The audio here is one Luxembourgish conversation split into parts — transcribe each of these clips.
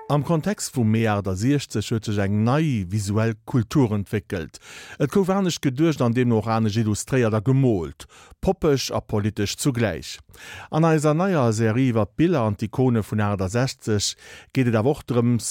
Am Kontext vum Mee 68 huet sech eng nei visuell Kultur entwéckelt. Et gouf anescht geduecht an deemno och anescht illustréiert a gemoolt, poppeg a politesch zugläich. An eiser neier Serie iwwer d'Biller an d'Ikone vun 68 geet et awer och drëms,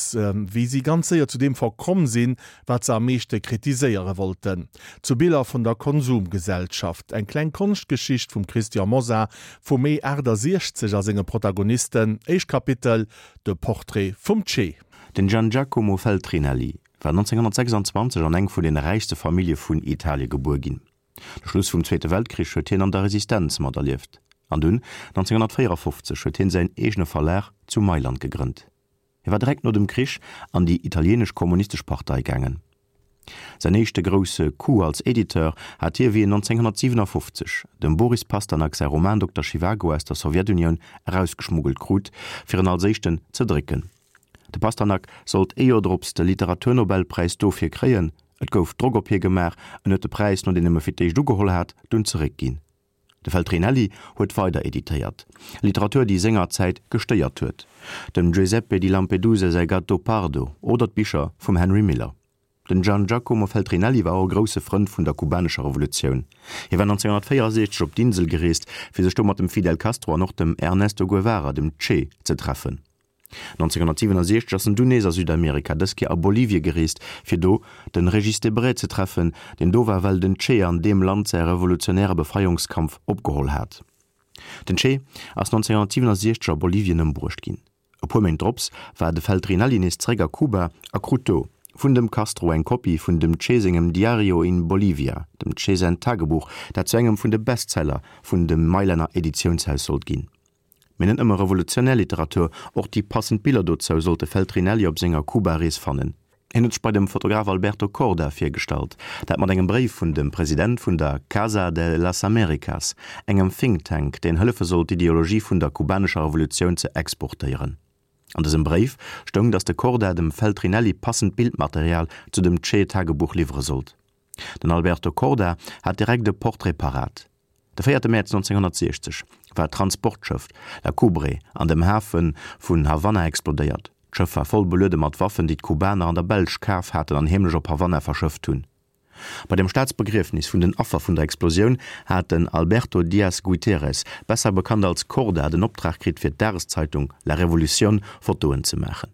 wéi si ganz séier zu deem verkomm sinn, wat se am meeschte kritiséiere wollten, zu Biller vun der Konsumgesellschaft. Eng kleng Konschtgeschicht vum Christian Mosar vum Mee 68 a senge Protagonisten. Éischt Kapitel, De Portrait vum Che. Den Gian Giacomo Feltrinelli war 1926 an eng vun den räichste Famillje vun Italie gebuer ginn. De Schluss vum Zweete Weltkrich huet hien an der Resistenz materlieft an dunn 1954 huet hien säin eegene Verlag zu Mailand gegrënnt. Hie war direkt no dem Krich an déi italienesch Kommunistesch Partei gaangen. Säin éischte grousse Coup als Editeur hat hie wéi en 1957 dem Boris Pasternak säi Roman Dokter Schiwago aus der Sowjetunioun erausgeschmuggelt krut, fir en als éischten ze drécken. De Pasternak sollt ee Joer drops de Literaturnobelpräis dofir kréien. Et gouf Drock op hie gemaach, en huet de Präis, nodeem en e fir d'éischt ugeholl hat, dunn zeréckginn. De Feltrinelli huet weider editéiert, Literatur déi senger Zäit gestéiert huet, dem Giuseppe di Lampedusa säi Gattopardo oder d'Bicher vum Henry Miller. Den Gian Giacomo Feltrinelli war och e grousse Frënd vun der kubanescher Revolutioun. Hie war 1964 op d'Insel gereest, fir sech do mat dem Fidel Castro an och dem Ernesto Guevara, dem Che, ze treffen. 1967 ass en dunn nees a Südamerika, dës Kéier a Bolivie gereest, fir do de Régis Debray ze treffen, deen do war, well den Che an deem Land säi revolutionäre Befreiungskampf opgeholl hat. Den Che ass 1967 a Bolivien ëmbruecht ginn. E puer Méint drops war de Feltrinelli nees zeréck a Kuba a krut do vun dem Castro eng Kopie vun dem Che sengem Diario in Bolivia, dem Che säin Tagebuch, dat zu engem vun de Bestseller vun dem Mailänner Editiounshaus sollt ginn. Mee net nëmme revolutionär Literatur, och déi passend Biller dozou sollt de Feltrinelli op senger Kuba-Rees fannen. Hien huet sech bei dem Fotograf Alberto Korda virgestallt, dat mat engem Bréif vun dem President vun der Casa de las Américas, engem Think Tank, deen hëllefe sollt d'Ideologie vun der kubanescher Revolutioun ze exportéieren. An dësem Bréif stoung, datt de Korda dem Feltrinelli passend Bildmaterial zu dem Che-Tagebuch liwwere sollt. Den Alberto Korda hat direkt e Portrait parat. De véierte Mäerz 1960 war d'Transportschëff La Coubre an dem Hafe vun Havanna explodéiert. D'Schëff war voll beluede mat Waffen, déi d'Kubaner an der Belsch kaf haten an heemlech op Havanna verschëfft hunn. Bei dem Staatsbegriefnis vun den Affer vun der Explosioun hat den Alberto Diaz Guiteres, besser bekannt als Korda, den Optrag kritt fir d'Dageszeitung La Revolucion Fotoen ze maachen.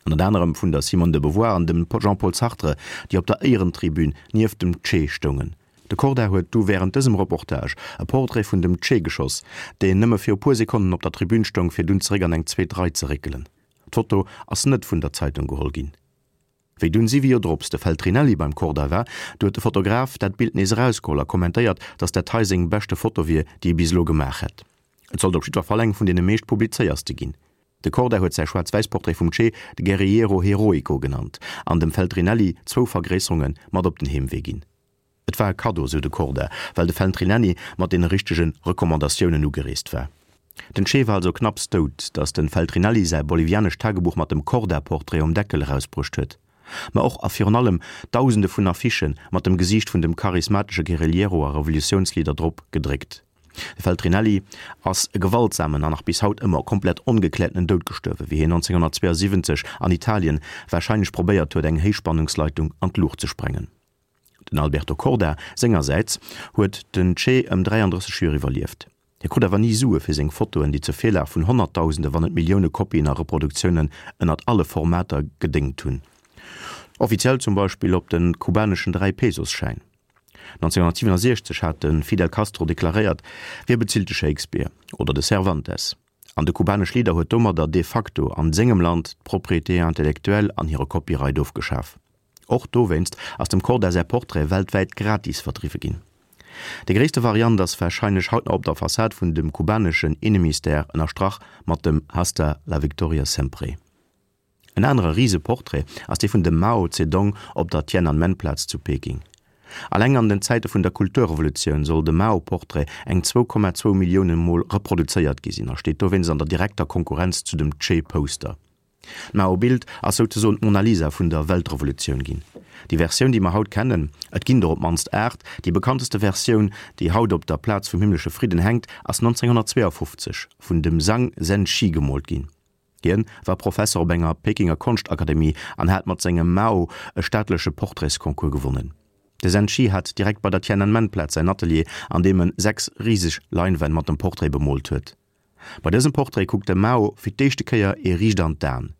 Ënnert anerem vun der Simone de Beauvoir an dem Jean-Paul Sartre, déi op der Éierentribün nieft dem Che stoungen. De Korda huet du wärend dësem Reportage e Portrait vun dem Che geschoss, deen nëmme fir e puer Sekonnen op der Tribün stoung, fir dunn zeréck an eng zweet Rei ze réckelen. D'Foto ass net vun der Zeitung geholl ginn. Wéi dunn siwe Joer drops de Feltrinelli beim Korda war, du huet de Fotograf dat Bild nees erausgeholl a kommentéiert, datt dat hei seng beschte Foto wier, déi e bis elo gemaach hätt. Et sollt op jiddwer Fall eng vun deene meescht publizéierste ginn. De Korda huet säi Schwaarz-Wäiss-Portrait vum Che de Guerrillero Heroico genannt an dem Feltrinelli zwou Vergréisserunge mat op den Heemwee ginn. Et war e Kaddo, sou de Korda, well de Feltrinelli mat deene richtege Recommandatiounen ugereest war. Den Che war also knapps dout, datt de Feltrinelli säi bolivianescht Tagebuch mat dem Korda-Portrait um Deckel erausbruecht huet. Ma och a virun allem Dausende vun Affichë mat dem Gesiicht vun dem charismatesche Guerillero a Revolutiounsleader drop gedréckt. De Feltrinelli ass e gewaltsamen an nach bis haut ëmmer komplett ongekläertenen Doud gestuerwen, wéi hien 1972 an Italien warscheinlech probéiert huet, eng Héichspannungsleitung an d'Luucht ze sprengen. Den Alberto Korda sengersäits huet den Che ëm 33 Joer iwwerlieft. Hie krut awer ni Sue fir seng Fotoen, déi zur Virlag vun Honnertdausende wann net Millioune Kopien a Reproduktiounen ënnert alle Formater gedéngt hunn. Offiziell zum Beispill op de kubaneschen Dräi-Pesos-Schäin. 1967 hat de Fidel Castro deklaréiert, Wie bezilt de Shakespeare oder de Cervantes? An de kubanesch Leader huet domadder de facto an sengem Land d'Propriété intellectuelle an hire Copyright ofgeschaf. Och dowéinst ass dem Korda säi Portrait weltwäit gratis verdriwwe ginn. Déi gréisste Variant ass warscheinlech haut nach op der Fassad vun dem kubaneschen Innemistère ënnerstrach mat dem Hasta la victoria sempre. En anere Riseportrait ass dee vun dem Mao Zedong op der Tiananmen-Plaz zu Peking. Alleng an den Zäite vun der Kulturrevolutioun soll de Mao-Portrait eng 2,2 Millioune Mol reproduzéiert gi sinn a steet dowéinst an der direkter Konkurrenz zu dem Che-Poster. D'Mao-Bild ass souzesoen d'Mona Lisa vun der Weltrevolutioun ginn. Déi Versioun, déi mer haut kennen, et ginn der op d'mannst 8, déi bekannteste Versioun, déi haut op der Plaz vum himmlesche Fridden hänkt, ass 1952 vun dem Zhang Zhenxi gemoolt ginn. Hien war Professer op enger Pekinger Konschtakademie an hat mat sengem Mao e staatleche Portraitsconcours gewonnen. De Zhen Qi hat direkt bei der Tiananmen-Plaz säin Atelier, an deem en 6 riseg Leinwänn mat dem Portrait bemoolt huet. Bei dësem Portrait kuckt de Mao fir d'éischte Kéier ee riicht an d'Aen.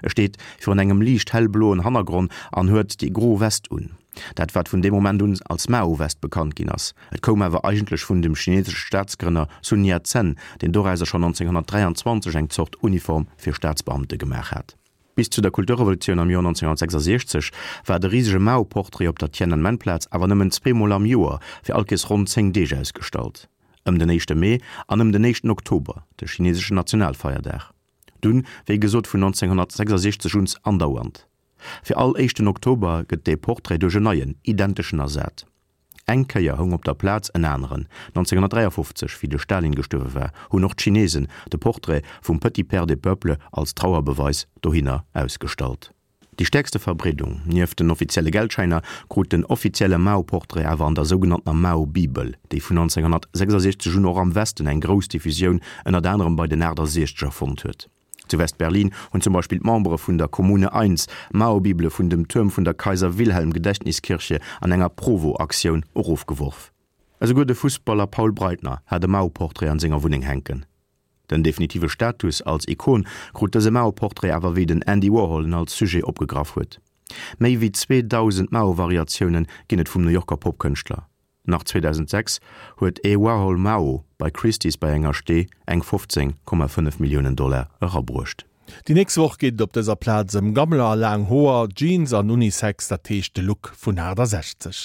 E steet virun engem liicht hellbloen Hannergronn an huet déi gro West un, dat wat vun deem Moment un als Mao-West bekannt ginn ass. Et koum awer eigentlech vun dem chinesesche Staatsgrënner Sun Yat-sen, deen dorauser schonn 1923 eng Zort Uniform fir Staatsbeamte gemaach hat. Bis zu der Kulturrevolutioun am Joer 1966 war de risege Mao-Portrait op der Tiananmen-Plaz awer nëmmen zweemol am Joer fir all Kees ronn 10 Deeg ausgestallt, ëm den éischte Mee an ëm den éischten Oktober, de chineseschen Nationalfeierdag. Dunn, wéi gesot, vun 1966 un andauernd. Fir all éischten Oktober gëtt dee Portrait duerch en neien, identeschen ersat. Eng Kéier houng op der Plaz en aneren. 1953, wéi de Stalin gestuerwe war, hunn och d'Chinesen de Portrait vum Petit Père des Peuples als Trauerbeweis dohinner ausgestallt. Déi stäerkste Verbreedung, nieft den offizielle Geldschäiner, krut den offizielle Mao-Portrait awer an der sougenanntener Mao-Bibel, déi vun 1966 un och am Westen eng grouss Diffusioun, ënnert anerem bei den 68er, fonnt huet. Zu West-Berlin hunn zum Beispill d'Membere vun der Kommune Eins Mao-Bibele vun dem Tuerm vun der Kaiser-Wilhelm-Gedächtniskirche an enger Provo-Aktioun erofgeworf. Esouguer de Fussballer Paul Breitner hat e Mao-Portrait an senger Wunneng hänken. Den definitive Status als Ikon krut dëse Mao-Portrait awer wéi den Andy Warhol en als Sujet opgegraff huet. Méi wéi 2.000 Mao-Variatioune ginn et vum New Yorker Popkënschtler. Nach 2006 huet ee Warhol Mao bei Christie's bei enger Stee eng 15,5 Milliounen Dollar erabruecht. Déi nächst Woch geet et op dëser Plaz ëm Gammler a laang Hoer, Jeans an Unisex, dat heescht de Look vun 68.